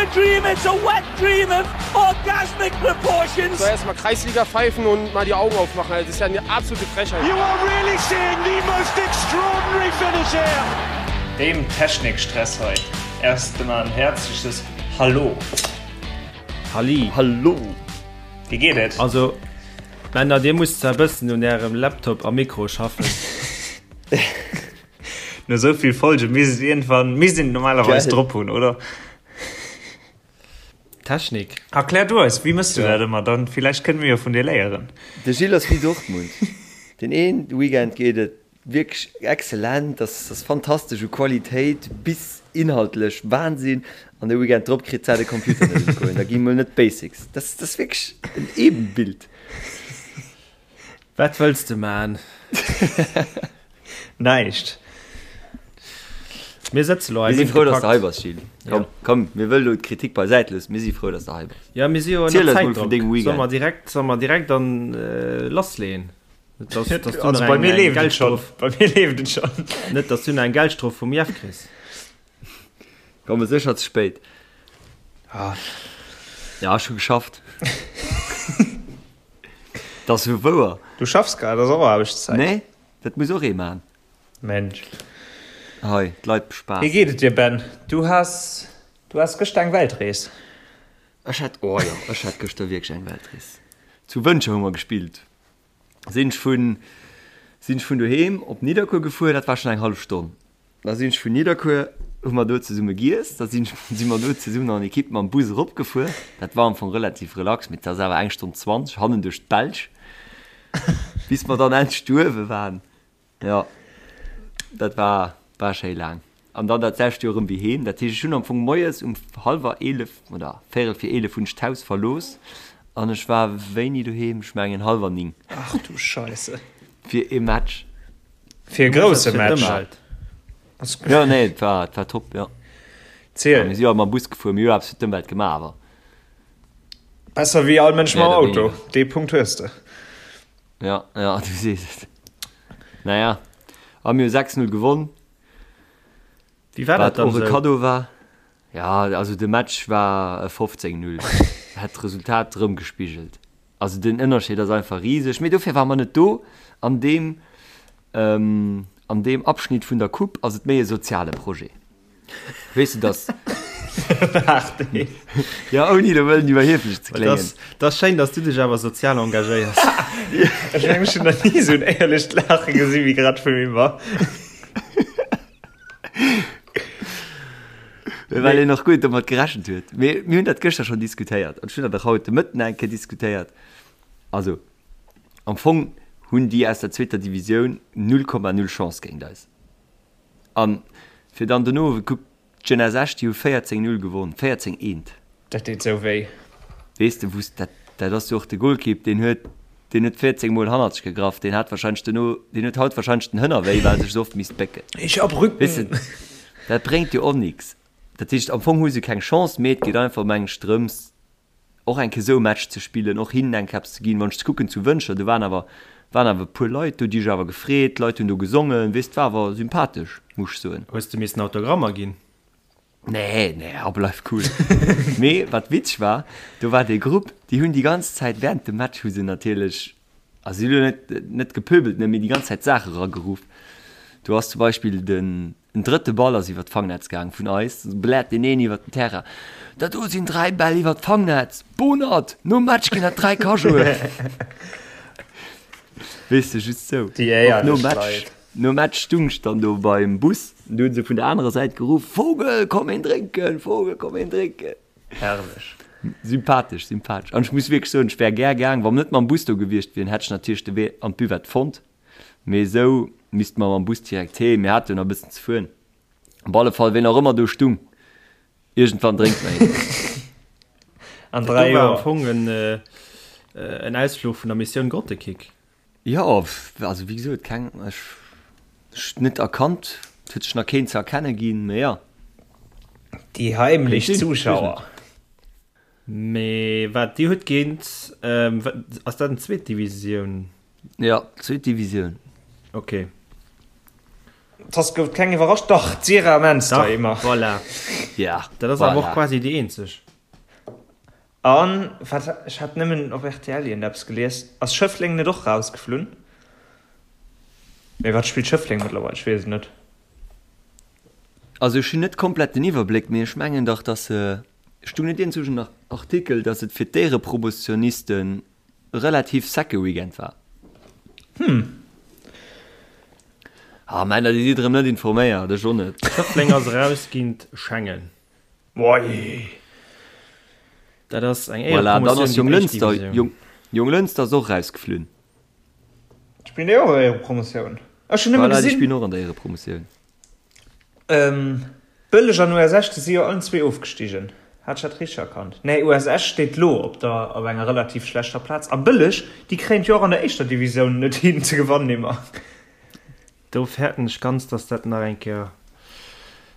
a dream, it's a wet dream of orgasmic proportions. So erstmal Kreisliga pfeifen und mal die Augen aufmachen. Das ist ja eine absolute Frechheit. You are really seeing the most extraordinary finish here. Deem Technikstress hei. Erst emmer en häerzliches Hallo. Halli. Hallo. Wéi geet et? Also Männer, dir musst zwar e bëssen un ärem Laptop a Mikro schaffen. No sou vill Folge misst et iergendwann, misst een et normalerweis drop hunn, oder? Technik. Erklär du eis, wéi mëss du dat ëmmer? Dann villäicht kënne mir jo vun dir léieren. De Gilles ass wéi Dortmund. Den een Weekend geet et wierklech excellent, ass ass fantastesch u Qualitéit bis inhaltlech Wahnsinn, an de Weekend drop kritt se de Computer net un d'Goen. Da gi mol net d'Basics. Dat ass wierklech en Ebenbild. Wat wëlls de man? Näischt. Mir sëtze lo hei. Mir si frou, dass de hei bass, Gilles. Komm, komm, mir wëlle lo d'Kritik beisäit loossen. Mir si frou, dass de hei bass. Ja, mir si jo Ziel ënner eis mol vun Zäitdrock. dengem Solle Weekend. mer direkt, solle mer direkt an lassleeën? Net, dass, dass du Also nach bei eng, mir eng leeft et schonn. Geldstrof, Bei mir leeft et schonn. net, dass du nach eng Geldstrof vum Jeff kriss. Komme sécher ze spéit. Ah. Ja, ech hu geschafft. Dat ass jo wouer. Du schaffs grad, ass och Aarbechtszäit. Nee, dat muss och ee man. Mensch. Hei, d'Leit Wéi bespaasst. geet et dir, Ben? Du has, du has gëschter eng Weltrees. Ech hat, oh jo, ech hat gëschter wierklech eng Weltrees. Zu Wëntger hu mer gespillt. Sinn ech vun, sinn ech vun doheem op Nidderkuer gefuer, dat war schonn eng hallef Stonn. Da sinn ech vun Nidderkuer, hu mer do zesumme giess, da sinn ech, si mer do zesummen an Ekipp mam Bus eropgefuer. Dat war am Fong relativ relax, mee et ass awer eng Stonn 20 hannen duerch d'Belsch, bis mer dann endlech do uewe waren. Jo, dat war, war schéi laang. An dann dat selwecht jo erëm wéi heem. Dat heescht, ech hunn am Fong moies um hallwer 11 oder véierel vir 11 hunn ech d'Haus verlooss an ech war wéini doheem? Ech mengen hallwer 9. Ach du Scheisse. Fir ee Match. Fir e grousse Match. Jo, nee, et war, et war top, jo. Ziel. Mir si jo mam Bus gefuer, mir hu jo eppes fir d'Ëmwelt gemaach, awer. Besser wéi all Mënsch mam Méi oder Auto. wéiniger. Dee Punkt hues de. Ja, ja, du sees et. Naja, a mir hu 6, 0 gewonn. Wéi war dat Wat dann och e esou? Kaddo war. Ja, also de Match war e 15, 0. Hätt d'Resultat erëmgespigelt. Also den Ënnerscheed ass einfach riseg. Mee dofir ware mer net do. An deem, an deem Abschnitt vun der Coupe ass et méi e soziale Projet. Weess de, dass. Waart ee. Ja, ouni elo wëllen iwwerhieflech ze kléngen. Dat ass schéin, dass du dech awer sozial engagéiers. Ech mengen, ech hunn nach ni esou en éierlecht Laache gesi wéi grad vum Ymer. Well een och guer net domat gerechent huet. Mee mir hunn dat gëschter schonn diskutéiert an ech hunn dat och haut de Mëtten eng Kéier diskutéiert. Also, am Fong hunn déi aus der zweeter Divisioun 0,0 Chance géint eis. An fir dann dono, kuck, d'Jeunesse Esch, déi hu 14, 0 gewonn, 14, eent. Dat deet sou wéi. Weess de, wou s, dat, dat ass jo och de Golkipp, deen huet, deen huet 14 Mol hannert sech gegraff, deen hat wahrscheinlech dono, deen huet haut wahrscheinlech den Hënner wéi, well e sech esou oft misst bécken. Ich hab Rücken. Weess de, dat bréngt jo och nix. Dat heescht, am Fong hu se keng Chance, mee et geet einfach, meng ech, drëms, och eng Kéier esou e Match ze spillen, och hinnen eng Kéier eppes ze ginn. Wann ech ze kucken zu Wëntger, do waren awer, waren awer e puer Leit do, déi hu sech awer gefreet, d'Leit hunn do gesongen, weess, et war awer sympathesch, muss ech soen. Hues de missen Autogrammer ginn? Nee, nee, oh, bleif cool. Mee wat witzeg war, do war dee Grupp, déi hunn déi ganz Zäit während dem Match hu se natierlech, also si hunn elo net, net gepöbelt, ne, mee déi ganz Zäit Saache erageruff. Do ass zum Beispill den, En drëtte Ball ass iwwer d'Fangnetz gaang vun eis, bläert deen een iwwer den Terrain, Dat do sinn 3 Bäll iwwer d'Fangnetz! Bonert! Nom Match ginn dat 3 Cajoen! Weess de, just sou. Déi Och nom éierlech Match, Leit. nom Match stung ech dann do beim Bus, du hunn se vun der anerer Säit geruff, Vogel, komm een drénken! Vogel, komm een drénken! Herrlech. Sympathesch, sympathesch. An ech muss wierklech soen, ech wär gär gaang, wa mer net mam Bus do gewiescht wieren, hätt ech natierlech de Wee an d'Buvette fonnt. Mee esou misste mer mam Bus direkt heem. Mir hate jo nach e bëssen ze fueren. Op alle Fall, ween och ëmmer do stung, iergendwann drénkt mer een. An Dat do 3 war am Joer. Fong en, en Ausfluch vun der Missioun Grottekick. Jo, also wéi gesot, keng, ech, ech net erkannt. Et huet sech nach keen ze erkenne ginn, mee jo. Déi heimlech Kéint sinn, ech weess Zuschauer. net. Mee wat, Dir hutt géint, ass dat en zweet Divisioun? Jo, zweet Divisioun. Ok. T'ass gouf keng iwwerrascht. Dach, d'Sira Menster Dach, immer. Voilà. Ja, Dat ass awer och voilà. quasi déi eenzeg. An wat, ech hat nëmmen op rtl iergendeppes gelies, ass Schëffleng net och rausgeflunn? Mee wat spillt Schëffleng mëttlerweil? Ech weess et net. Also ech hunn net komplett den Iwwerbléck, mee ech mengen dach, dass se, stung net iergendzwousch en Artikel, dass et fir d'Éierepromotionisten relativ secke Weekend war? Hm. Ah Männer, dir sidd erëm net informéiert, ech och net. Schëffleng ass eraus géint Schengen. Wei. Dat ass eng Voilà, dann ass Éierepromotioun géint d'éischt Jonglënster, Divisioun. Jong, Jonglënster ass och erausgeflunn. Spillen déi och Éierepromotioun? Ech hunn nëmme Voilà, déi gesinn. spillen och an der Éierepromotioun. Bëlleg an US Esch, déi si jo allen zwee ofgestigen. Hat ech dat richteg erkannt? Nee, US Esch steet lo op der op enger relativ schlechter Plaz a Bëlleg, déi kréien et jo och an der éischter Divisioun net hin ze gewannen immer. Do fäerten ech ganz, dass dat nach eng Kéier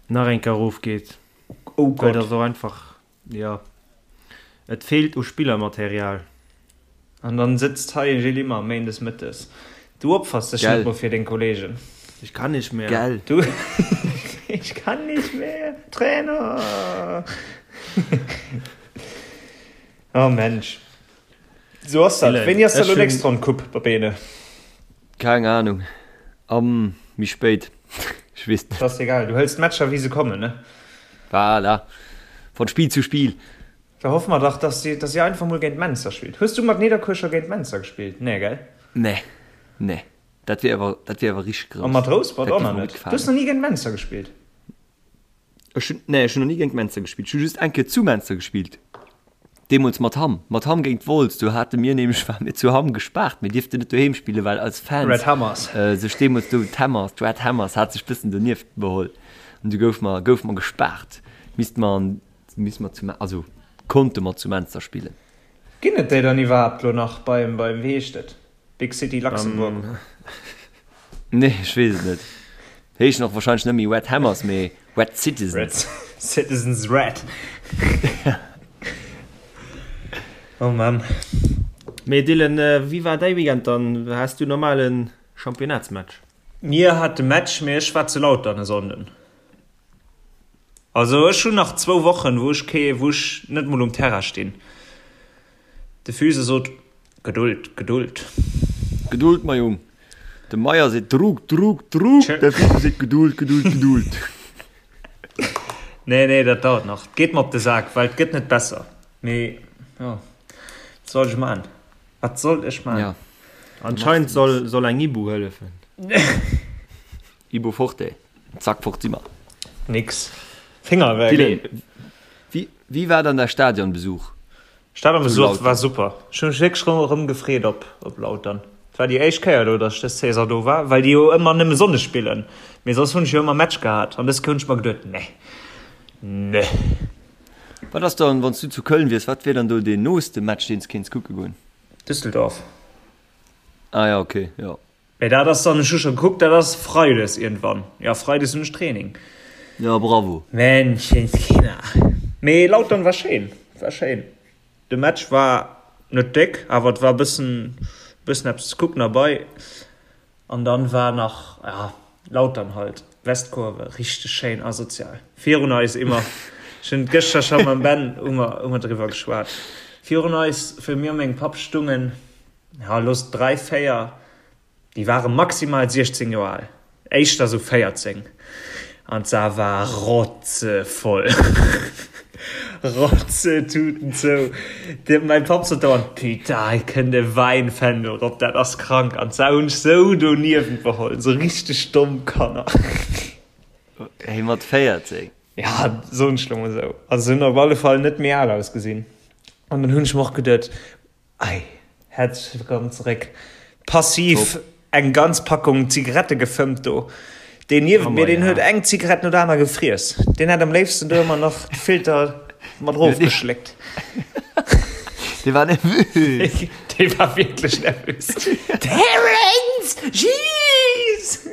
nach eng Kéier erofgeet. Oh Well Gott. dat ass och einfach, jo, et feelt u Spillermaterial. An dann sëtzt hei e Gilles Immer méindes mëttes. Du opfers dech net Gell. mol fir deng Kollegen. Ich kann nicht mehr. Gell. Du Ich kann nicht mehr, Trainer! Oh Mensch. Sou ass dat. Dylan, Wéini ass da ech lo hunn. nächst Ronn Coupe, Babene? Keng Ahnung. Am méi spéit. Ech weess net. Ass egal, du hëls d'Matcher wéi se kommen, ne? Voilà. Von Spiel zu Spiel. Da hoffe mer dach, dass si, dass si einfach mol géint Menster spillt. Hues du mat Nidderkuer scho géint Menster gespillt? Nee, gell? Nee. Nee. Dat wier awer, dat wier awer richteg A grouss. mat Rouspert Dat och géif nach mer gutt net. Du hues gefalen. nach ni géint Menster gespillt? Ech hunn, nee, ech hunn nach ni géint Menster gespillt. Ech hu just eng Kéier zu Menster gespillt. Deemools mat Hamm. Mat Hamm géint Wolz. Do hate mir nämlech, ware mir zu Hamm gespaart. Mir dierften net doheem spillen, well eis Fans Red Hammers. sech deemools do, d'Hammers, d'Red Hammers hat sech bëssen donieft beholl. An du goufe mer, goufe mer gespaart. Misste mer an, misste mer zu, also konnte mer zu Menster spillen. Ginn et déi dann iwwerhaapt lo nach beim, beim, wéi heescht et? Big City Luxembourg. Nee, ech weess et net. Heeschen och wahrscheinlech net méi Red Hammers, mee Red Citizens. Red Citizens Red. Oh Mann. Mee Dylan, wéi war däi Weekend dann? Has du normale Championnatsmatch? Mir hate Match, mee ech war zu Lautern e Sonnden. Also ech hunn nach zwou Wochen, wou ech kee, wou ech net mol um Terrain stinn. De Füse sot, Geduld, Geduld. Geduld, mei Jung. De Meyer seet Druck, Druck, Druck, de Füse seet Geduld, Geduld, Geduld. Nee, nee, dat dauert nach. 't geet mer op de Sak, well 't gëtt net besser. Mee jo, wat soll ech man? Wat soll ech man? Ja. Anscheinend soll, soll eng Ibu hëllefen. Ibu forte, zack fort si mer. Nix. Finger weg. Dylan, wéi, wéi war dann däi Stadionbesuch? Stadionbesuch war super. Ech hu mech wierklech rëm, rëm gefreet op, op Lautern. Et war déi éischt Kéier elo, datt ech dës Saison do war, well déi jo ëmmer nëmme Sonndes spillen. Mee soss hunn ech jo ëmmer Match gehat an dës Kéier hunn ech mer geduet, nee, nee. Wat ass dann, wann s du zu Köln wiers, wat wier dann do deen nooste Match, deen s kéints kucke goen? Düsseldorf. Ah ja, okay, jo. Mee dat ass dann, ech hu scho gekuckt, dat ass Freides iergendwann. Jo, Freides hunn ech Training. Jo, bravo. Menschenskinder. Mee Lautern war schéin, war schéin. De Match war net déck, awer et war e bëssen, bëssen eppes ze kucken derbei. An dann war nach, ja, Lautern halt, Westkurve, richteg schéin asozial. Virun eis immer, ech hunn et gëschter scho mam Ben, hu mer, hu mer driwwer geschwat. Virun eis, fir mir a mengem Papp stungen, ja looss 3, 4, déi ware maximal 16 Joer al, éischter sou 14, an d'Saar war rotzevoll, Rotzetuten zou. De, mäi Papp sot dauernd, Putain, hei kënnt e Wäinfändel rop, dat ass krank. An d'Sau hunn ech sou doniewent beholl, sou richteg domm Kanner. Hey, mat 14? Ja, soen ech lo mol sou. Also se hunn op alle Fall net méi al ausgesinn. An dann hunn ech mer och geduet, Ei, häerzlech wëllkomm zeréck. Passiv eng ganz Packung Zigarette gefëmmt do. Deen niewent mir, deen huet eng Zigarett no der aner gefriess. Deen hätt am léifsten do ëmmer nach de Filter mat erofgeschléckt. Dee war nervös. Dee war wierklech nervös. Terence! Jeez!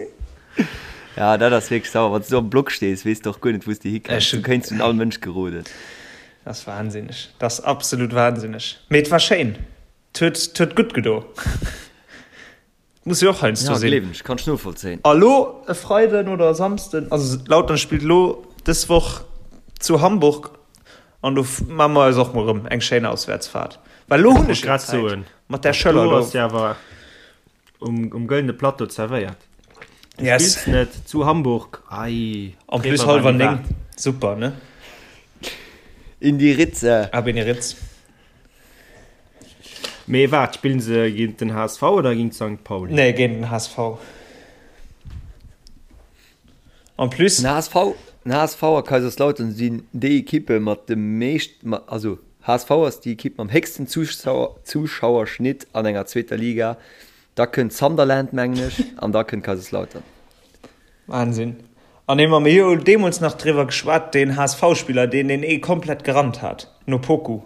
Ja, dat ass wierklech sauer. Wann s du am Block stees, weess de och guer net, wou s de hikënns. Du kéints un all Mënsch geroden. Dat ass wahnsinneg. Dat ass absolut wahnsinneg. Mee et war schéin. Et huet, et huet gutt gedo. Muss jo och heiansdo Ja, sinn. gleewen ech, kann ech novollzéien. A lo e Freiden oder e Samsden, also Lautern spillt lo dës Woch zu Hamburg an do maache mer eis och mol rëm eng schéin Auswäertsfahrt. Well lo hunn ech jo Zäit mat där Schëller do. Do ass jo awer um, um gëllene Plateau zerwéiert. Du Yes. spills net zu Hamburg. Ei, En plus hallwer 9, super, ne? In die Ritze. Ab in die Ritz. Mee waart, spillen se géint den HSV oder géint Sankt Pauli? Nee, géint den HSV. En plus. Den HSV, den HSV a Kaiserslautern sinn déi Ekippe mat dem meescht, also HSV ass déi Ekipp mam héchsten Zuschauerschnitt an enger zweeter Liga, da kënnt Sunderland mengen ech an da kënnt Kaiserslautern. Wahnsinn. An ee mer mir hu deemools nach driwwer geschwat, deen HSV-Spiller, deen deen ee komplett gerannt hat, no Poku.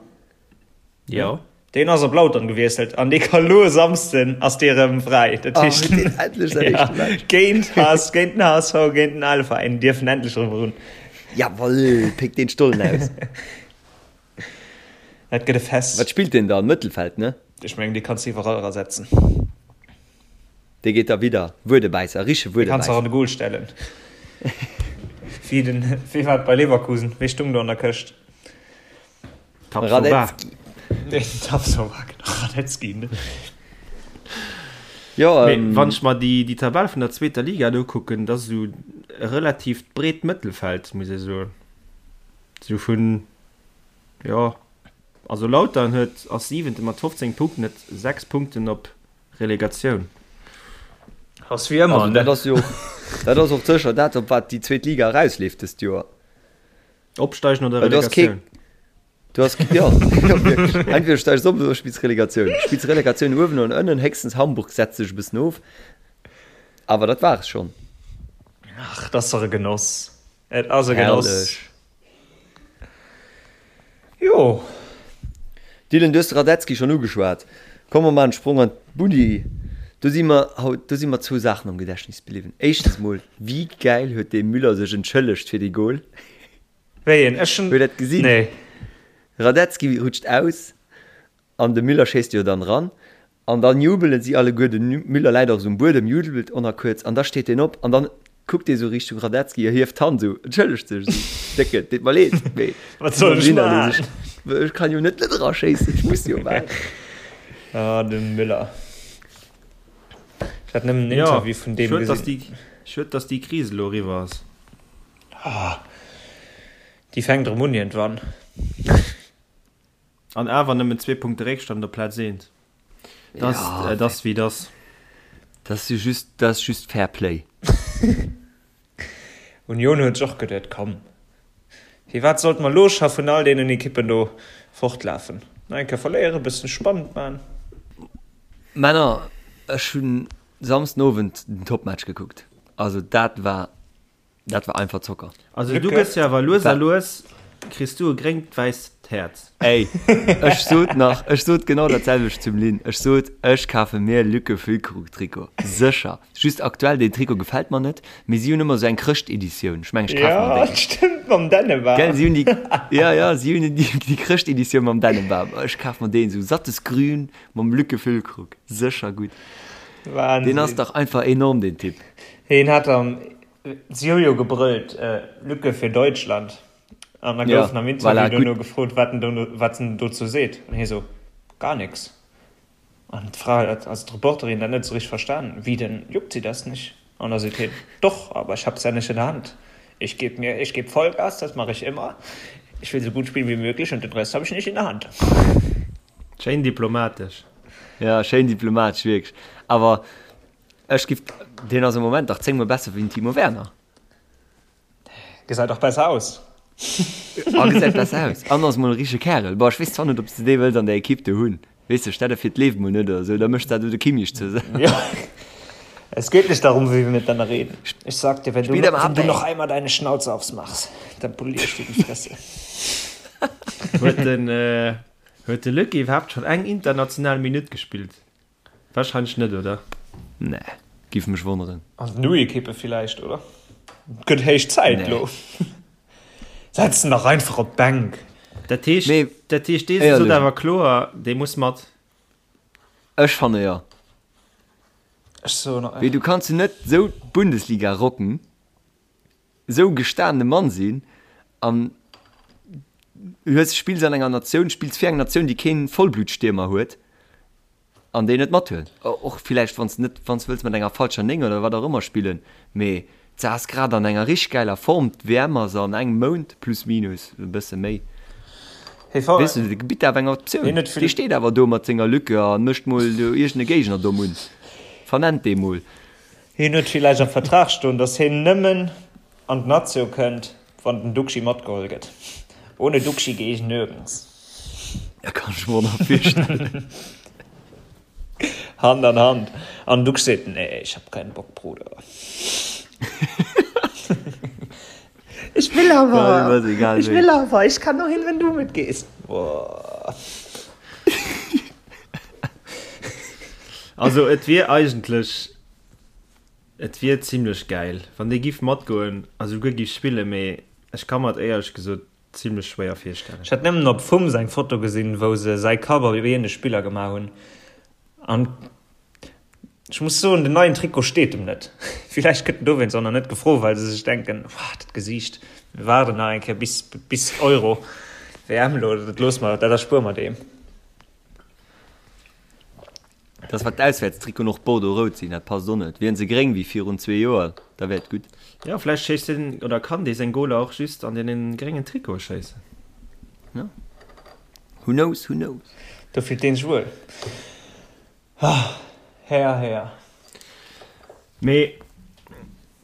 Jo. Deen ass op Lautern gewiesselt an dee ka lo e Samsden ass dee rëm fräi. Dat Ah, heescht huet deen endlech säin ja, éischte Match. géint HS, géint den HSV, géint den ale Veräin dierfen endlech rëm erun. Jawoll, péck deen Stollen aus. Dat gëtt e Fest. Wat spillt deen dann? Mëttelfeld, ne? Ech mengen, dee kanns de iwwerall erasetzen. Dee geet da widder. Wuedebäisser, riche Dee kanns de och Wuedebäisser. an de Goal stellen. Wéi den, wéi war et bei Leverkusen? Wee stung do an der Këscht? Tapsoba. Radetzky. Den Tapsoba, genau. Radetzky, ne? Jo, Mee ähm. wann ech mer déi, déi Tabell vun der zweeter Liga do kucken, dat ass esou e relativt breet Mëttelfeld, muss ee soen. Esou vun, jo, also Lautern huet, ass Siwente mat 15 Punkten, huet 6 Punkten op Relegatioun. Ass wéi ëmmer, Also ne? dat ass jo, dat ass och sécher dat, op wat déi zweet Liga erausleeft dëst Joer. Opsteigen oder Well du has kee, Relegatioun? du has, jo, jo wierklech. Entweder steigst op oder spills Relegatioun. Spills Relegatioun uewen oder ënnen, héchstens Hamburg setzt sech e bëssen of. Awer dat war es schonn. Ach, dat ass dach e Genoss. Et ass e Genoss. Herrlech. Jo. Dylan, du hues de Radetzky schonn ugeschwat. Komm mer maachen e Sprong an d'Bulli. Do si mer haut, do si mer zwou Saachen am Gedächtnis bliwwen. Éischtens mol, wéi gäil huet dee Müller sech entschëllegt fir dee Gol? Wéi een? Ech hunn. Huet dat gesinn? Nee. Radetzky rutscht aus an de Müller schéisst jo dann eran. An dann jubelen si alleguer, de Müller läit och esou um Buedem, jubelt och nach kuerz an da steet deen op an dann kuckt dee sou Richtung Radetzky a hieft d'Hand esou, entschëllegt sech esou, Décke, deet mer leed, mee Wat soll ech maachen? Ech kann jo net net eraschéissen, ech muss jo maachen. Ah, de Müller. Ech hat nëmmen en Jo, Interview vun deem schued, dass gesinn. déi, schued, dass déi Kris elo eriwwer ass. Ah, déi fänkt erëm un iergendwann. An awer nëmmen zwee Punkte Réckstand op Plaz eent. Dat Ja, et ass wéi et ass. Dat ass jo just, dat ass just Fair Play. Union huet sech och geduet, komm, firwat sollte mer elo scho vun all deenen Ekippen do fortlafen? Nach eng Kéier verléieren, e bëssen spannend maachen. Männer, ech hunn Samsden Owend den Topmatch gekuckt. Also dat war Dat war einfach Zocker. Also du gëss jo awer lues a lues, kriss du e gréngt-wäisst Häerz. Ey, ech sot nach, ech sot genau dat selwecht zum Lynn. Ech sot, ech kafe mir Lücke Füllkrug-Trikot. Sécher. Just aktuell, deen Trikot gefält mer net, mee si hunn ëmmer esou eng Chrëscht-Editioun. Ech mengen, ech kafe mer Ja, déi. stimmt, mam Dännebam. Gell, si hunn déi, ja, ja, si hunn déi, déi Chrëscht-Editioun mam Dännebam. Ech kaf mer deen, esou sattes Grün mam Lücke Füllkrug. Sécher gutt. Deen ass Wahnsinn. dach einfach enorm, deen Typ. Hien hat am Si hu jo gebrëllt, Lücke für Deutschland. An da gouf en am Interview dono gefrot, wat en dono, wat en dozou seet. An hie sou, Gar nix. An d'Fra, also d'Reporterin, dat net esou richteg verstanen, Wie denn, juckt Sie das nicht? An da seet hien, Doch, aber ich hab's ja nicht in der Hand. Ich geb mir, ich geb Vollgas, das mache ich immer. Ich will so gut spielen wie möglich und den Rest hab ich nicht in der Hand. Schéin diplomatesch. Ja, schéin diplomatesch, wierklech. Awer Ech giff, deen ass am Moment dach 10 mol besser wéi den Timo Werner. Gesäit och besser aus. A gesäit besser aus an ass mol e richtege Kärel. Bon, ech weess zwar net, ob s de dee wëlls an der Ekipp do hunn. Weess de, stell der vir, d'leeft mol net oder sou, da méchs dat do de Kimmich ze. Ja. Es geht nicht darum, wie wir miteinander reden. Ich sag dir, wenn du, Spiel am wenn du Abend. noch einmal deine Schnauze aufmachst, dann polier ich dir die Fresse. Huet den, huet de Luc iwwerhaapt schonn eng international Minutt gespillt? Wahrscheinlech net, oder? Nee, giff mech wonneren. An den U-Ekippe villäicht, oder? Gëtt héich Zäit Nee. lo. Setz en dach einfach op d'Bänk. Dat heescht, Mee dat heescht, dee sot éierlech. awer kloer, dee muss mat. Ech fanne jo. Ech soen. Wéi, du kanns jo net esou d'Bundesliga rocken, esou e gestaanene Mann sinn an hues, spills an enger Natioun, spills fir eng Natioun, déi keen Vollblutstiermer huet an déi net mathuelen. Och villäicht, wann s de net, wann s de wëlls mat enger falscher 9 oder wat och ëmmer spillen, mee s ass grad an enger richteg gäiler Form, d'WM ass an engem Mount, plus minus e bësse méi. Weess de, de bitt awer eng Optioun. Dee steet awer do mat senger Lücke a mécht mol do iergend e Géigner domm un. Vernennt dee mol. Hien huet villäicht am Vertrag stoen, datt hien nëmmen an d'Natio kënnt, wann den Duxi matgeholl gëtt. Ohne Duxi gehe ich nirgends. Dat kann ech mer och nach virstellen. Hand an Hand. An den Duxch seet, Nee, ich hab keinen Bock, Bruder. Ich will awer, ich will awer, ich kann nur hin, wenn du mitgehst. Boah. Also et wier eigentlech, et wier zimlech gäil, wann dee giff matgoen a souguer giff spillen, mee ech ka mer et éierlech gesot zimlech schwéier virstellen. Ech hat nëmmen op Fums eng Foto gesinn, wou se säi Kapp op een Spiller gemaach hunn an ech muss soen, den neien Trikot steet em net. Villäicht gëtt en dowéinst och nach net gefro, well se sech denken, Wah, dat Gesiicht, mir waarden nach eng Kéier bis bis Euro, WM elo, dat loosse mer, dat erspuere mer deem. Dass wat d'Auswäertstrikoten och bordeaux-rout sinn, dat passt och net. Wieren se gréng wéi virun zwee Joer, da wär et gutt. Jo, vläicht schéisst deen, oder kann dee seng Goler och just an deene gréngen Trikote schéissen. Jo. Who knows, who knows. Do fillt deen sech wuel. Ah, Här, Här. Mee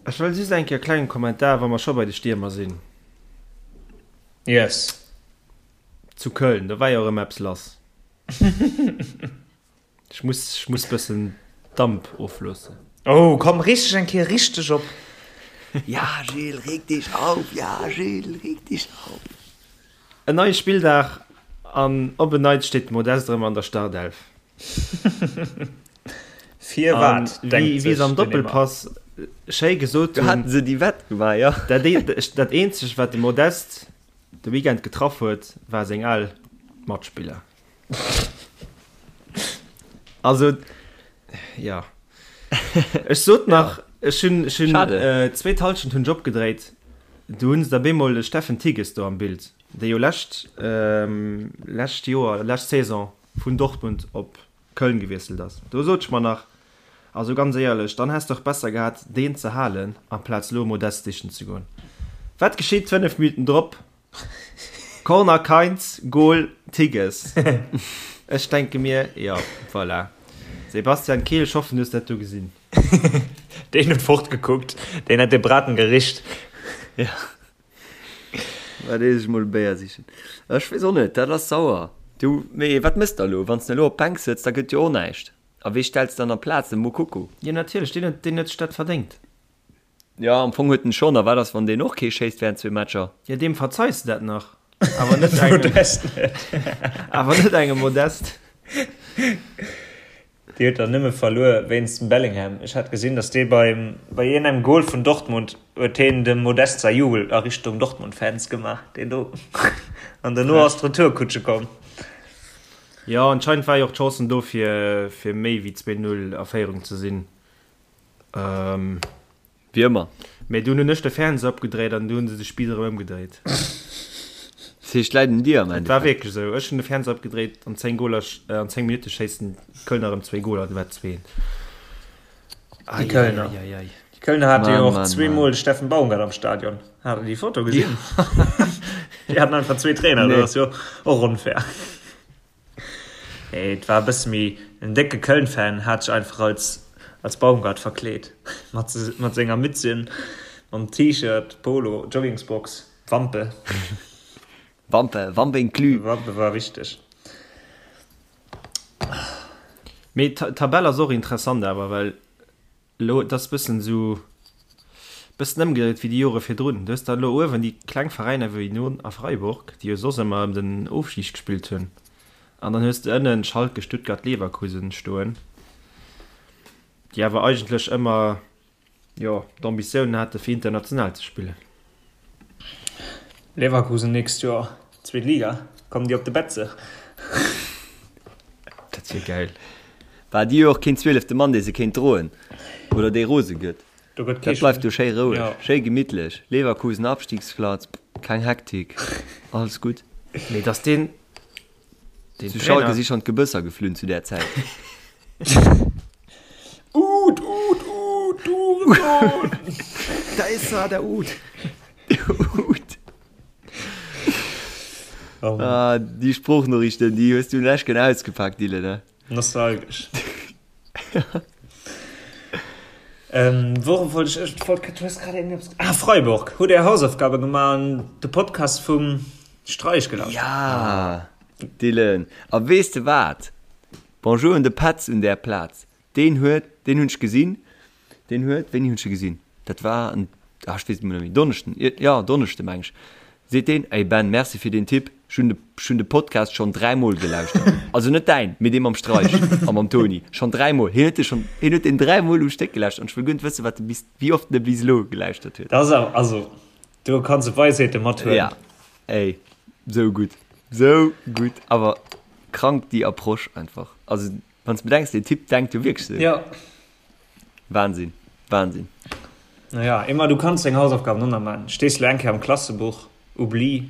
ech wëll just eng Kéier e klengen Kommentar, wa mer scho bei de Stiermer sinn. Yes. Zu Köln, do war jo erëm eppes lass. Ech muss, ech muss bëssen Damp ofloossen. Oh, komm, reeg dech eng Kéier richteg op. Ja, Gilles, reg dich auf, ja, Gilles, reg dich auf. En neie Spilldag an op en Neits steet de Modeste erëm an der Startelf. Firwat, denkt sech den Wéi se am Emma. Doppelpass schéi gesot Do hunn. haten se déi Wett gemaach, jo. Dat eenzegt, wat de Modeste de Weekend getraff huet, war seng al Matspiller. Also, ja. Ech sot nach, ech hunn, ech hunn, äh, zweet Halschent hunn ech opgedréit, du hunn se da bemol de Steffen Tigges do am Bild, dee jo lescht, ähm, lescht Joer, lescht Saison vun Dortmund op Köln gewiesselt ass. Do sot ech mer nach, also ganz éierlech, dann häss de och besser gehat, deen ze halen, amplaz lo Modeste sichen ze goen. Wat geschitt 5 Minuten drop? Corner Kainz, Goal Tigges. Ech denke mir, jo, voilà. Sebastian Kehl, ech hoffen, du hues dat do gesinn. Deen huet fortgekuckt, deen hat de Braten gericht. Ja. Wat ees ech mol e Béier sichen. Ech weess och net, dat ass sauer. Du, mee wat mëss de elo? Wann s de elo op d'Bänk sëtz, da gëtt jo och näischt. A wee stells de dann amplaz? De Moukoko? Jo, natierlech, deen huet, deen huet sech dat verdéngt. Jo, am Fong huet en schonn. A wat ass, wann deen och kee schéisst während zwee Matcher? Jo, deem verzeis de dat nach, awer net engem, Modest net. awer net engem Modest. Déi huet der nëmme verluer wéinst dem Bellingham. Ech hat gesinn, datt dee beim, bei iergendengem Goal vun Dortmund huet heen dem Modest säi Jubel a Richtung Dortmund-Fans gemaach, deen do. An dono ass d'Retourkutsche komm. Jo, anscheinend war jo och d'Chancen do fir, fir méi wéi 2, 0 a Féierung ze sinn. Wéi ëmmer. Mee dunn hunn ech de Fernseher opgedréit an du hunn se de Spiiss erëm ëmgedréit. Dat heescht, läit un dir am Et war Endeffekt. wierklech esou. Ech hunn de Fernseher opgedréit, an 10 Goler, an 10 Minutte schéissen d'Kölner erëm zwéi Goler, du war et 2. Déi Kölner. Eieieiei. Déi Kölner hate jo Mann, och Mann, zweemol Mann. de Steffen Baumgart am Stadion. Hat der déi Foto gesinn? Déi haten einfach zwee Trainer, dat Nee. ass jo och onfair. Nee, et war e bësse méi, en décke Köln-Fan hat sech einfach als als Baumgart verkleet, mat mat senger Mützchen, mam T-Shirt, Polo, Joggingsbox, Wampe. Wampe, Wampe inclus. Wampe war wichteg. Mee d'Tabell ass och interessant awer, well Elo, et ass bëssen esou, bëssen ëmgedréit wéi déi Jore virdrun. Du hues dann elo uewen déi kleng Veräiner wéi Nyon a Freiburg, déi jo soss ëmmer ëm den Ofstig gespillt hunn, an dann hues de ënnen Schalke, Stuttgart, Leverkusen stoen, déi awer eigentlech ëmmer, jo, d'Ambitiounen hate fir international ze spillen. Leverkusen nächst Joer zweet Liga, kommen déi op de Betze? Dat wier gäil. War déi jo och keen zwielefte Mann, dee se kéint droen oder dee rose gëtt. Do gëtt kee Dat bleift do schéi roueg, Ja. schéi gemittlech. Leverkusen Abstiegsplatz, keng Hektik, alles gutt. Mee dass deen, deen Zu Schalke Trainer. si schonn d'Gebësser geflunn zu där Zäit. Uut, Uut, Uut, du Hurensohn! Da is er, der Uut! Uut. Ah, déi Sproochnoriichten, déi hues du lech gen ausgepakt, Dylan, ne? Nostalgesch. Ähm, worum wollt ech, ech wollt, du hues grad irgendeppes, ah, Freiburg. Hutt Är Hausaufgabe gemaach an de Podcast vum Streich gelauschtert? Ja, Dylan. A weess de wat? Bonjour un de Petz un där Plaz. Deen huet, deen hunn ech gesinn, deen huet, wéini hunn ech e gesinn? Dat war en, ah ech weess et emol net méi, Donneschden, jo Donneschde meng ech, seet deen, Ey Ben, merci fir deen Tipp, ech hunn de, ech hunn de Podcast schonn dräimol gelauschtert. Also net däin, mee dee mam Streich a mam Toni, schonn dräimol. Hien huet de schonn, hien huet deen dräimol um Stéck gelauschtert an ech wëll guer net wëssen, wat e bis, wéi oft en e bis elo gelauschtert huet. Dat ass awer, also do kanns de Weisheete mathuelen. Ja, ey, sou gutt, sou gutt, awer krank déi Approche einfach, also. Wann s bedenks, deen Typ denkt jo wierklech sou. Ja. Wahnsinn, Wahnsinn. Naja, Emma, du kanns deng Hausaufgaben och nach maachen. Stees lo eng Kéier am Klassebuch, oublie,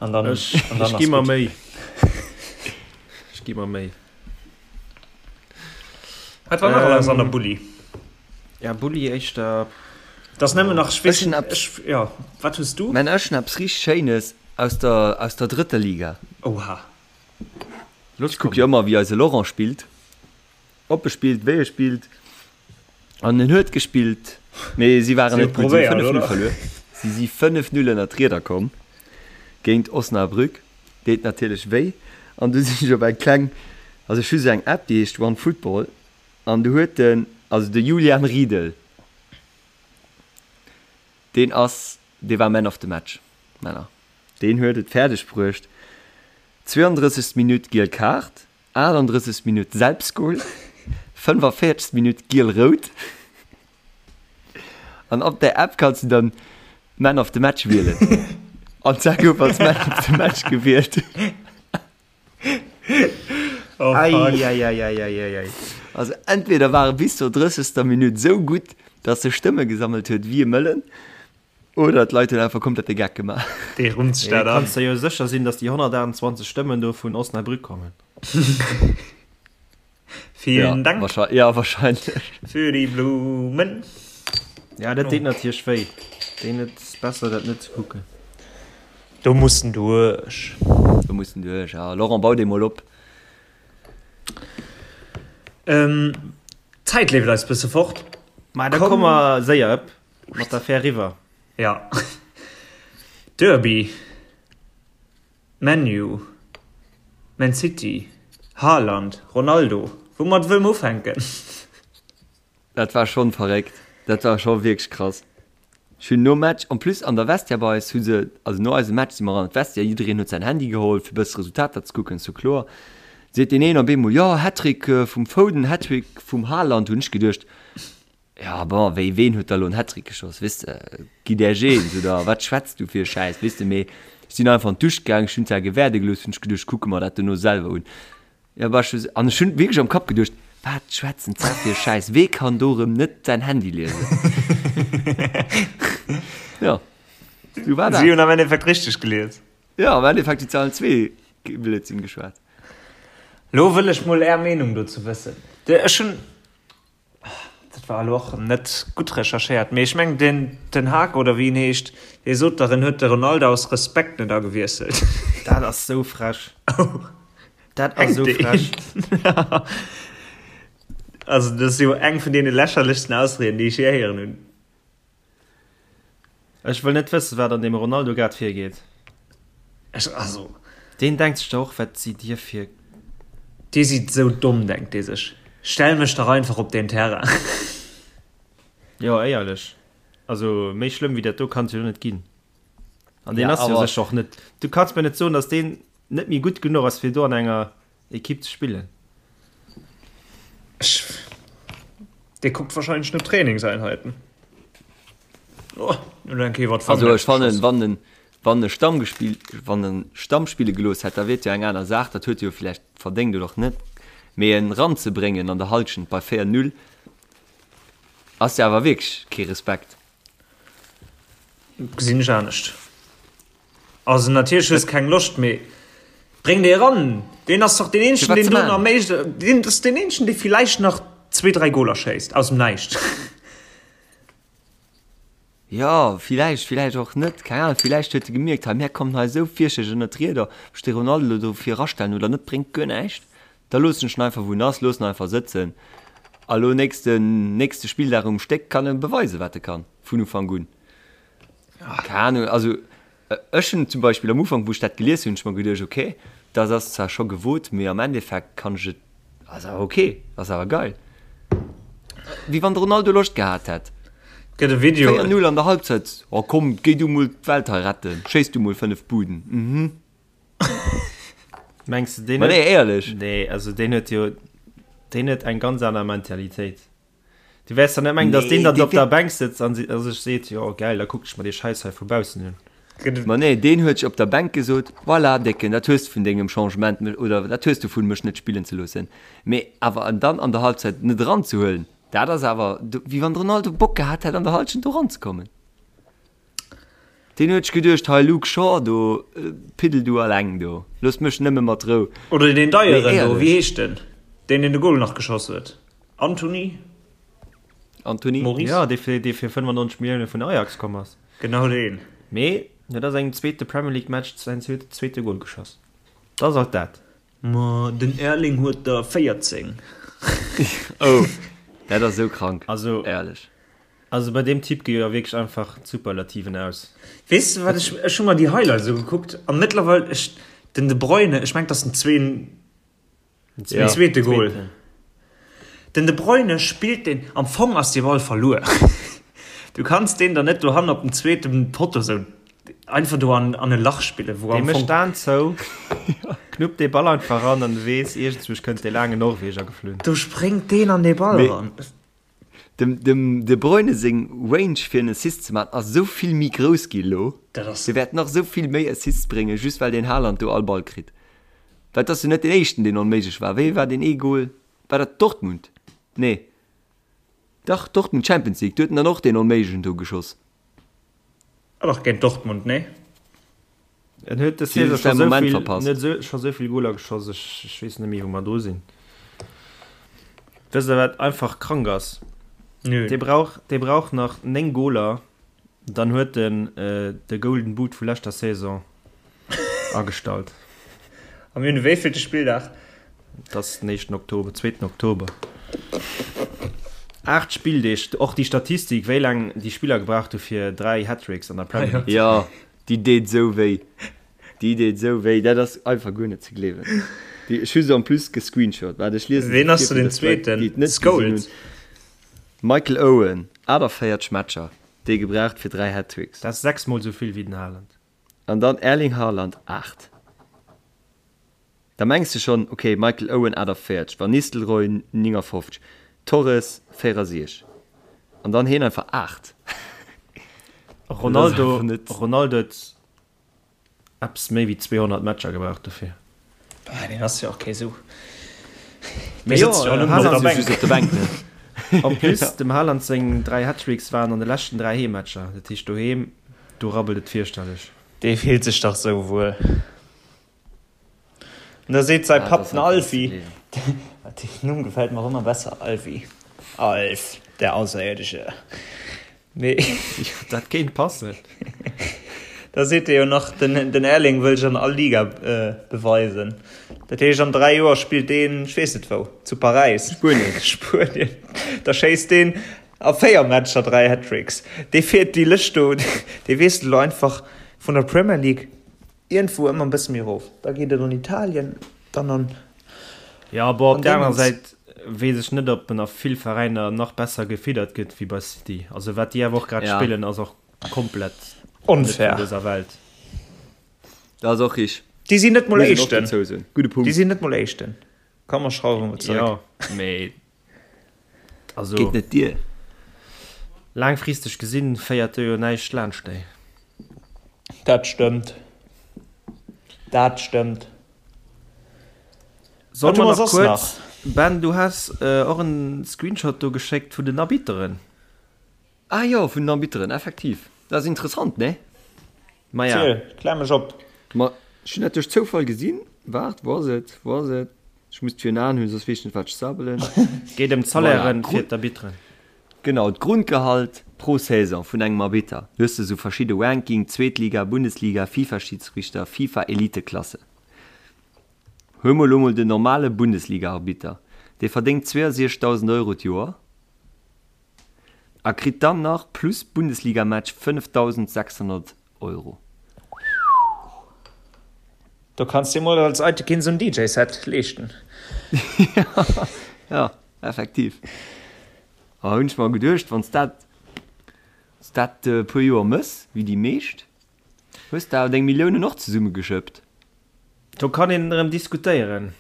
an dann, Ech, an dann ech ass gi mer gutt. Méi. Ech gi mer Méi. Wat war nach alles an der Ähm, Bulli? ja, Bulli éischter. Dat ass nëmmen nach, ech weess Ech hunn net, eppes, ech, ja, wat hues du? mä ech hunn eppes richteg Schéines aus der, aus der drëtter Liga. Oha. Los Ech kuck jo komm. ëmmer wéi eise Laurent spillt, ob e spillt, wéi e spillt an en huet gespillt, mee si waren Si hu net gutt, si hu probéiert, 5, 0 oder? verluer. Si si 5, 0 ënner d'Rieder komm géint Osnabrück, deet natierlech wéi an du sinn ech op eng kleng, also ech hu sou eng App déi heescht One Football an du huet den, also de Julian Riedel, deen ass, dee war Man of the Match, Männer. Deen huet et fäerdeg bruecht, 32. Minutt giel Kaart, 38. Minutt Selbstgol, 45. Minutt giel-rout. An op der App kanns du dann Man of the Match wielen. An d'Sa gouf als Man of the Match gewielt. Oh, fuck. Eieieiei. Also entweder war e bis zur 30. Minutt esou gutt, dass e Stëmme gesammelt huet wéi e Mëllen, Oder d'Leit hunn einfach komplett de Geck gemaach. Dee rummt sech dat an. Kanns der jo sécher sinn, dass déi 128 Stëmmen do vun Osnabrück kommen. Vielen Dank. Ja, wahrscheinlech. Für die Blumen. Ja, dat deet natierlech wéi. Deen et ass besser dat net ze kucken. Do muss en duerch. Do muss en duerch, ja. Laurent, bau dee mol op. D'Zäit leeft eis bësse fort. Ma da komme mer séier ëpp. Mat der Fähr riwwer. Ja. Derby. ManU. Man City. Haaland. Ronaldo. Woumat wëlle mer ufänken? Dat war schonn verréckt. Dat war scho wierklech krass. Ech hunn nom Match, en plus an der Vestiaire bei eis hu se, also no eisem Match si mer an d'Vestiaire, jiddereen huet säin Handy geholl fir bësse Resultater ze kucken, ass jo kloer. Seet deen een op eemol, jo Hattrick vum Foden, Hattrick vum Haaland, hunn ech geduecht, Ja bon, wéi ween huet da lo en Hattrick geschoss, weess de, gi där eens oder wat schwätz du fir e Schäiss, weess de, mee ech sinn einfach an d'Dusch gaang, ech hunn zwar gewäerde gelooss, hunn ech geduecht, ech kucke mer dat dono selwer un, ja bah ech an ech hunn wierklech am Kapp geduecht, wat schwätzen d'Zär fir e Schäiss, wee kann do rëm net säin Handy liesen? Ja, sou war Si dat. hunn am Endeffekt richteg gelies. Ja, am Endeffekt hunn se allen zwee Blödsinn geschwat. Lo wëll ech mol är Meenung dozou wëssen. Ech hunn. Dat war elo och net gutt recherchéiert, mee ech mengen den Ten Hag oder wéi en heescht, dee sot dach, en huet de Ronaldo aus Respekt net agewiesselt. Dat ass sou frech. Dat ass sou frech. Also dat ass jo eng vun deene lächerlechsten Ausrieden, déi ech jee héieren hunn. Ech wëll net wëssen, wat an deem Ronaldo grad virgeet. Ech, also. Deen denkt sech der och, wat sidd dir fir. Dir sidd sou domm, denkt dee sech. Stell mech dach einfach op deen Terrain. Jo, éierlech. Also, méi schlëmm wéi dat do kann et jo net ginn. An deen Ja, ass jo awer. sécher och net. Du kanns mir net soen, datt deen net méi gutt genuch ass, fir do an enger Equipe ze spillen. Ech, dee kuckt wahrscheinlech no Trainingseinheiten. Oh, elo eng Kéier iwwer Also d'Fangnetz ech fannen, geschoss. wann en, wann e Stamm gespill, wann en Stamm spille gelooss hätt, da wier et jo eng aner Saach, dat huet e jo vläicht verdéngt oder och net. Mee en ranzebréngen an der Halschent bei 4, 0 ass jo awer wierklech kee Respekt. Gesinn ech anescht. Also natierlech hues keng Loscht, mee bréng dee eran. Deen ass dach deen eenzegen, deen do nach méi, deen ass deen eenzegen, dee villäicht nach zwee, dräi Goler schéisst aus dem Näischt. Jo, villäicht, villäicht och net, keng Ahnung. Villäicht huet e gemierkt, hei mär kommen hei esou fierchterlech ënnert d'Rieder, ob ech de Ronaldo elo do vir erastellen oder net, bréngt guer näischt. Da loossen ech en einfach wou en ass, loossen en einfach sëtzen. A lo nächsten, nächste Spilldag um Stéck kann e beweisen, wat e kann, vun Ufank un. Keng Ahnung, also ech hunn zum Beispill am Ufank, wou ech dat gelies hunn, hunn ech mer geduecht, okay, dat ass zwar scho gewot, mee am Endeffekt kann ech et, ass awer okay, ass awer geil. Wéi wann de Ronaldo Loscht gehat hätt. Gëtt e Video. 4, 0 an der Halbzeit, oh komm, géi du mol d'Welt hei retten, schéiss du mol 5 Buden, mhm. Mengs de, deen Ma nee, éierlech. Nee, also deen huet jo, deen huet eng ganz aner Mentalitéit. Du wäers dann net mengen, dass deen dann op der Bänk sëtzt an sech seet, jo geil, da kucken ech mer dee Schäiss hei vu baussen un. Ma nee, deen huet sech op der Bänk gesot, voilà Décken, dat hues de vun dengem Changement mech, oder dat hues du vun mech net spillen ze loossen. Mee awer en dann an der Halbzeit net eranzehuelen, dat ass awer wéi wann de Ronaldo Bock gehat hätt an der Halschent do eranzekommen. Deen huet sech geduecht, hei Luke Shaw do, piddel du alleng do, looss mech nëmme mat Rou. Oder deen Deieren do, wéi heescht den, deen deen de Goal nach geschoss huet? Antony? Antony? Maurice? Jo, dee fir, dee fir 95 Millioune vun Ajax komm ass. Genau deen. Mee huet a sengem zweete Premier League Match säin zweete Goal geschoss. Dat ass alt dat. Ma den Erling huet der 14. Oh, dat ass esou krank, Also, éierlech. Also bei deem Typ gi jo wierklech einfach d'Superlativen aus. Weess de wat, ech, ech hu mer déi Highlights ugekuckt a mëttlerweil, ech, den De Bruyne, ech mengen, et ass den zween, den zweete Goal. Den De Bruyne spillt deen, am Fong ass dee Ball verluer. Du kanns deen der net dohannen op dem zweete Potto sou einfach do an, an e Lach spillen, wou am Fong. Dee mécht d'Aen zou, knuppt dee Ball einfach ran an du weess, iergendzwousch kënnt dee laangen Norweger geflunn. Do spréngt deen an dee Ball eran. Dem dem De Bruyne seng Range fir en Assist ze maachen ass esou vill méi grouss gi elo. Dat ass. Dee wäert nach esou vill méi Assists bréngen, just well deen Haaland do all Ball kritt. Well et ass jo net deen éischten deen onméiglech war. Wéi war deen ee Goal? War dat Dortmund? Nee. Dach, Dortmund Champions League, do huet en dann och deen onméiglechen do geschoss. Ah dach, géint Dortmund, nee? En huet des Saison scho sou vill, en huet sou, scho sou vill Goler geschoss, ech, ech weess net méi wou mer dru sinn. Wësst der wat einfach krank ass? Nö. Dee brauch, dee brauch nach 9 Goler, dann huet en de Golden Boot vu leschter Saison agestallt. A mir hunn de wéivillte Spilldag? Et ass den éischten Oktober, zweeten Oktober. 8 Spilldeeg, och déi Statistik, wéi laang déi Spiller gebraucht hu fir 3 Hattricks an der Premier League ze Jo, déi deet esou wéi. Déi deet esou wéi, dat ass einfach guer net ze gleewen. Déi, ech hu se en plus gescreenshot. Waart, ech liese se Ween ass vir, do fir den dass d'Leit, Zweeten? déi et net gesinn hunn. Scholes? Michael Owen, 48 Matcher, déi gebraucht fir 3 Hattricks. Dat ass 6 mol esou vill wéi den Haaland. An dann Erling Haaland, 8. Da mengs de schonn, ok, Michael Owen 48, Van Nistelrooy 59, Torres 64 an dann heen einfach 8. Ronaldo Ronaldo huet eppes méi wéi 200 Matcher gebraucht dofir. Ah, deen ass jo och kee sou. Mee jo, Haaland ass jo just op der Bänk, ne? En plus, dem Haaland seng 3 Hattricks waren an de leschten 3 Heemmatcher. Dat heescht doheem, do rabbelt et fierchterlech. Dee fillt sech dach sou wuel. An da seet säi Papp, den Alfie, deen Numm gefält mer och ëmmer besser, Alfie, Alf, der Außerirdische. Mee. Dat kéint passen. Da seet e jo nach, den, den Erling wëll sech an all Liga beweisen. Dat heescht, an 3 Joer spillt deen, ech weess net wou, zu Paräis. Spuenien. Spuenien. Da schéisst deen a 4 Matcher 3 Hattricks. Dee fiert déi Lëscht do, dee wiesselt elo einfach vun der Premier League Iergendwou ëmmer e bësse méi erof. Da geet et an Italien, dann an. Jo, bon, op der anerer Säit weess ech net, ob en a vill Veräiner nach besser gefiddert gëtt wéi bei City. Also wat déi awer och grad spillen, ass och komplett net vun dëser Welt. Dat ass och richteg. Déi sinn net mol Éischten. Déi sinn net mol Éischten. Komm mer schrauwe mol zeréck. Jo, mee also. Geet net dier. Laangfristeg gesinn féiert do jo näischt laanscht déi. Dat stëmmt. Dat stëmmt. Solle mer nach kuerz. Ben, du has och en Screenshot do geschéckt vun den Arbitteren. Ah jo, vun den Arbitteren, effektiv. Dat ass interessant, nee? Maja. Ziel, klär mech op. Ma ech hunn dat duerch Zoufall gesinn. Waart, wou ass et, wou ass et? Ech muss et virun Aen hunn, soss weess ech net, wat ech sabbelen. Geet ëm d'Salairen fir d'Arbitteren. Genau, d'Grundgehalt pro Saison vun engem Arbitter. Du hues esou verschidde Ranking, Zweetliga, Bundesliga, FIFA-Schidsrichter, FIFA-Eliteklasse. Huel mol elo mol den normale Bundesliga-Arbitter, dee verdéngt 62.000 Euro d'Joer a kritt dann nach plus Bundesliga-Match 5.600 Euro. Do kanns dir mol als Eitekin sou en DJ-Set leeschten. Jo, effektiv. A hunn ech mer geduecht, wann s dat, s dat e puer Joer mëss, wéi déi meescht, hues de awer deng Milliounen och zesummegeschëppt. Do kann een erëm diskutéieren.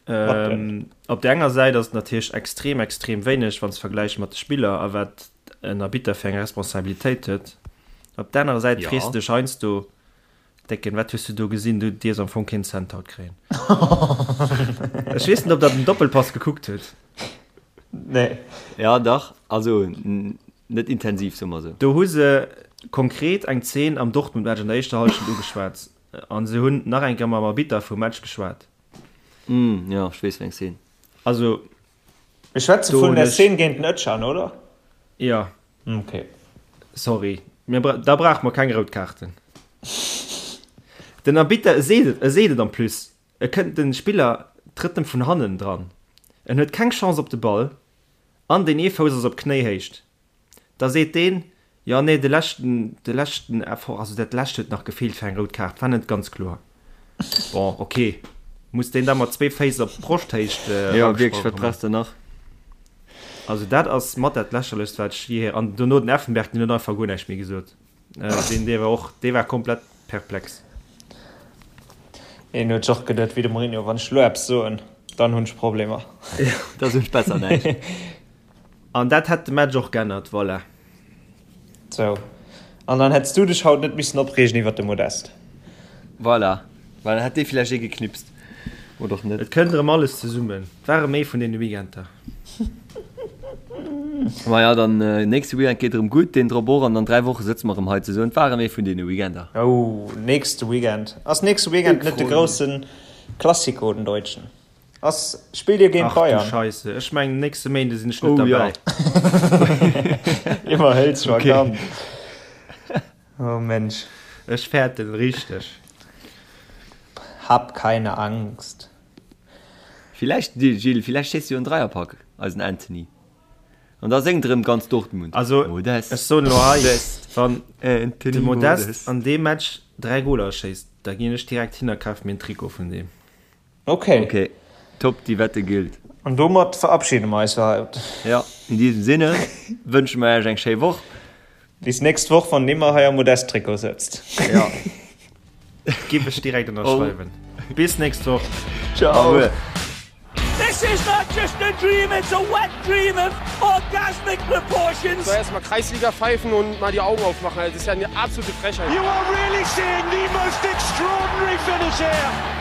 Op der enger Säit ass et natierlech extrem, extrem wéineg, wann s de vergläichs mat de Spiller a wat en Arbitter fir eng Responsabilitéit huet. Op der anerer Säit frees de dech heiansdo, Décken, wat hues du do gesinn? Du dierfs am Fong keen Cent haut kréien. Ech weess net, ob der den Doppelpass gekuckt hutt. Nee. Ja, dach. Also net intensiv, soe mer esou. Do hu se konkret eng Zeen am Dortmund-Match an der éischter Hallschent ugeschwat a se hunn nach eng Kéier mam Arbitter vum Match geschwat. Mm, jo, ech weess wéi eng Szene. Also, Mir schwätze do vun hunn der ech. Szene géint den Özcan, oder? Jo. Ok. Sorry, mir bra da brauche mer keng rout Kaarten. Den Arbitter, e seet et, e seet et en plus, e kënnt, de Spiller trëtt em vun hannen dran, en huet keng Chance op de Ball an deen ee Fouss ass op Knéihéicht. Da seet deen, jo nee, de leschten, de leschten Effort, also dat lescht huet nach gefeelt fir eng rout Kaart, war net ganz kloer. Bon, ok, muss deen da mat zwee Féiss op Broschthéicht Jo, wierklech, eragesprongen wat kommen? brauchs de nach? Also dat ass mat dat lächerlechst wat ech je, an dono den Effenberg, deen huet einfach guer näischt méi gesot, deen dee war och, dee war komplett perplex. Een huet sech och geduet wéi de Mourinho, wann ech elo eppes soen, dann hunn ech Problemer. Da soen ech besser näischt. An dat hätt de Match och g'ännert, voilà. Sou, an dann hätts du dech haut net missen opreegen iwwert de Modeste. Voilà, well dann hätt dee villäicht ee geknipst. Oder och net. Et kënnt erëm alles zesummen. Et ware méi vun deene Weekender. Maja, dann nächste Weekend geet erëm gutt, deen drop och, an an 3 Woche sëtze mer erëm hei zesummen. Et ware méi vun deene Weekender. Oh, nächste Weekend. Ass nächste Weekend net de grousse Classico, den Deutschen? Ass, spillt dir géint Ach du Bayern? Scheisse, ech mengen nächste Méinde sinn ech net Oh ja. derbäi. Iwwerhëls scho Okay. ganz. Oh Mensch. Ech fäerten richteg. Hab keine Angst. Villäicht, Gilles, villäicht schéisst jo en Dreierpack, eisen Anthony. An da séngt erëm ganz Dortmund. Also, Modest, ech soen elo hei, Modest, wann de Anthony Modest Modest. an deem Match 3 Goler schéisst, da ginn ech direkt hin a kaf mir en Trikot vun deem. Ok. Ok, top, déi Wette gillt. An domat verabschiede mer eis fir haut. Ja, in diesem Sinne wënsche mer iech eng schéi Woch. Bis nächst Woch, wann Nimmer hei am Modest-Trikot sëtzt. Ja. Giff ech direkt ënnerschreiwen. Bis nächst Woch. Ciao. This is not just a dream, it's a wet dream of orgasmic proportions. Soll erstmal Kreisliga pfeifen und mal die Augen aufmachen. Das ist ja eine absolute Frechheit. You are really seeing the most extraordinary finish here.